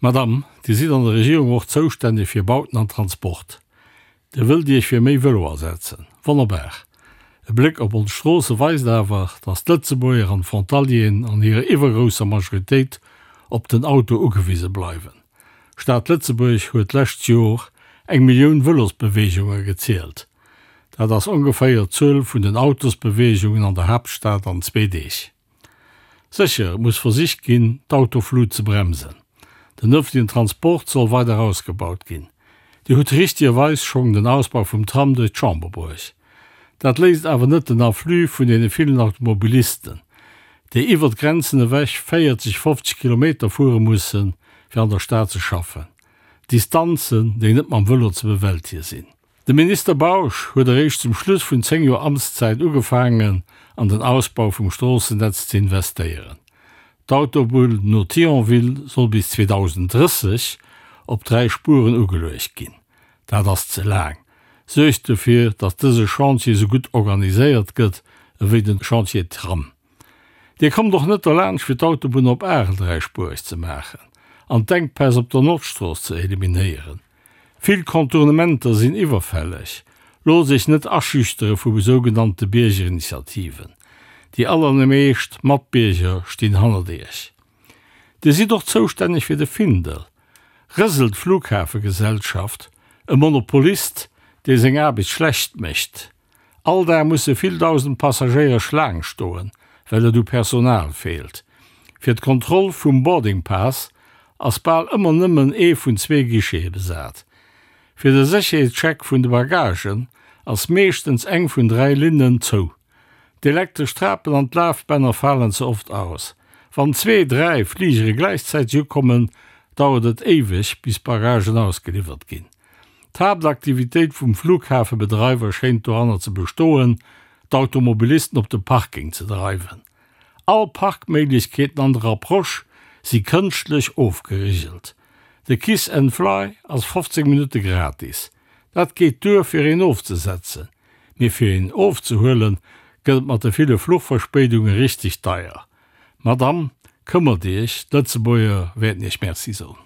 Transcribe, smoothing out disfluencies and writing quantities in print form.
Madame, Dir sidd an der Regierung och zoustänneg fir Bauten an Transport. Dir wëllt Iech fir méi Vëlo asetzen. Wonnerbar! E Bléck op ons Stroosse weist awer, dass d'Lëtzebuerger an d'Frontalieren an hirer iwwergrousser Majoritéit op den Auto ugewise bleiwen. D'Stad Lëtzebuerg huet d'lescht Jor eng Millioun Vëlosbeweegunge gezielt. Dat ass ongeféier d'Zuel vun den Autosbeweegungen an der Haaptstad an zwee Deeg. Sécher, et muss versicht ginn, d'Autoflut ze bremsen. Den ëffentlechen Transport soll weider ausgebaut ginn. Dir hutt richtegerweis schonn den Ausbau vum Tram duerch d'Chamber bruecht. Dat léist awer net den Afflux vun deene villen Automobilisten, déi iwwert d'Grenzen ewech 40, 50 Kilometer fuere mussen, fir an der Stad ze schaffen. Distanzen, déi net mam Vëlo ze bewältige sinn. De Minister Bausch huet eréischt zum Schluss vun 10 Joer Amtszäit ugefaangen an den Ausbau vum Stroossennetz ze investéieren. D'Autobunn no Thionville soll bis 2030 op 3 Spueren ugeluecht ginn. Dat ass ze laang. Suergt dofir, datt dëse Chantier sou gutt organiséiert gëtt ewéi den Chantier Tram. Dir kommt och net derlaanscht fir d'Autobunn op Arel dräispuereg ze maachen an d'Enkpäss op der Nordstrooss ze eliminéieren. Vill Contournementer sinn iwwerfälleg. Loosst Iech net aschüchtere vu sougenannte Biergerinitiativen. Déi allermeescht Matbierger stinn hannert Iech. Dir sidd och zoustänneg fir de Findel. Rëselt d'Flughafegesellschaft, e Monopolist, dee seng Aarbecht schlecht mécht. All Dag musse vill dausend Passagéier Schlaang stoen, well et u Personal feelt. Fir d'Kontroll vum Boarding Pass ass bal ëmmer nëmmen ee vun zwee Guichete besat. Fir de Sécherheetscheck vun de Bagagen ass meeschtens eng vun 3 Linnen zou. D'elektresch Trapen an d'Lafbänner falen ze oft aus. Wann zwee, dräi Fligere gläichzäiteg ukommen, dauert et éiweg, bis d'Bagagen ausgeliwwert ginn. D'Haaptaktivitéit vum Flughafebedreiwer schéint doranner ze bestoen, d'Automobilisten op de Parking ze dreiwen. All Parkméiglechkeeten an der Approche si kënschtlech ofgerigelt. De Kiss and Fly ass 15 Minutte gratis. Dat geet duer fir een ofzesetzen, mee fir een ofzehuelen gëtt et mat de ville Fluchverspéidunge richteg deier. Madame, këmmert Iech, d'Lëtzebuerger wäerten Iech Merci soen.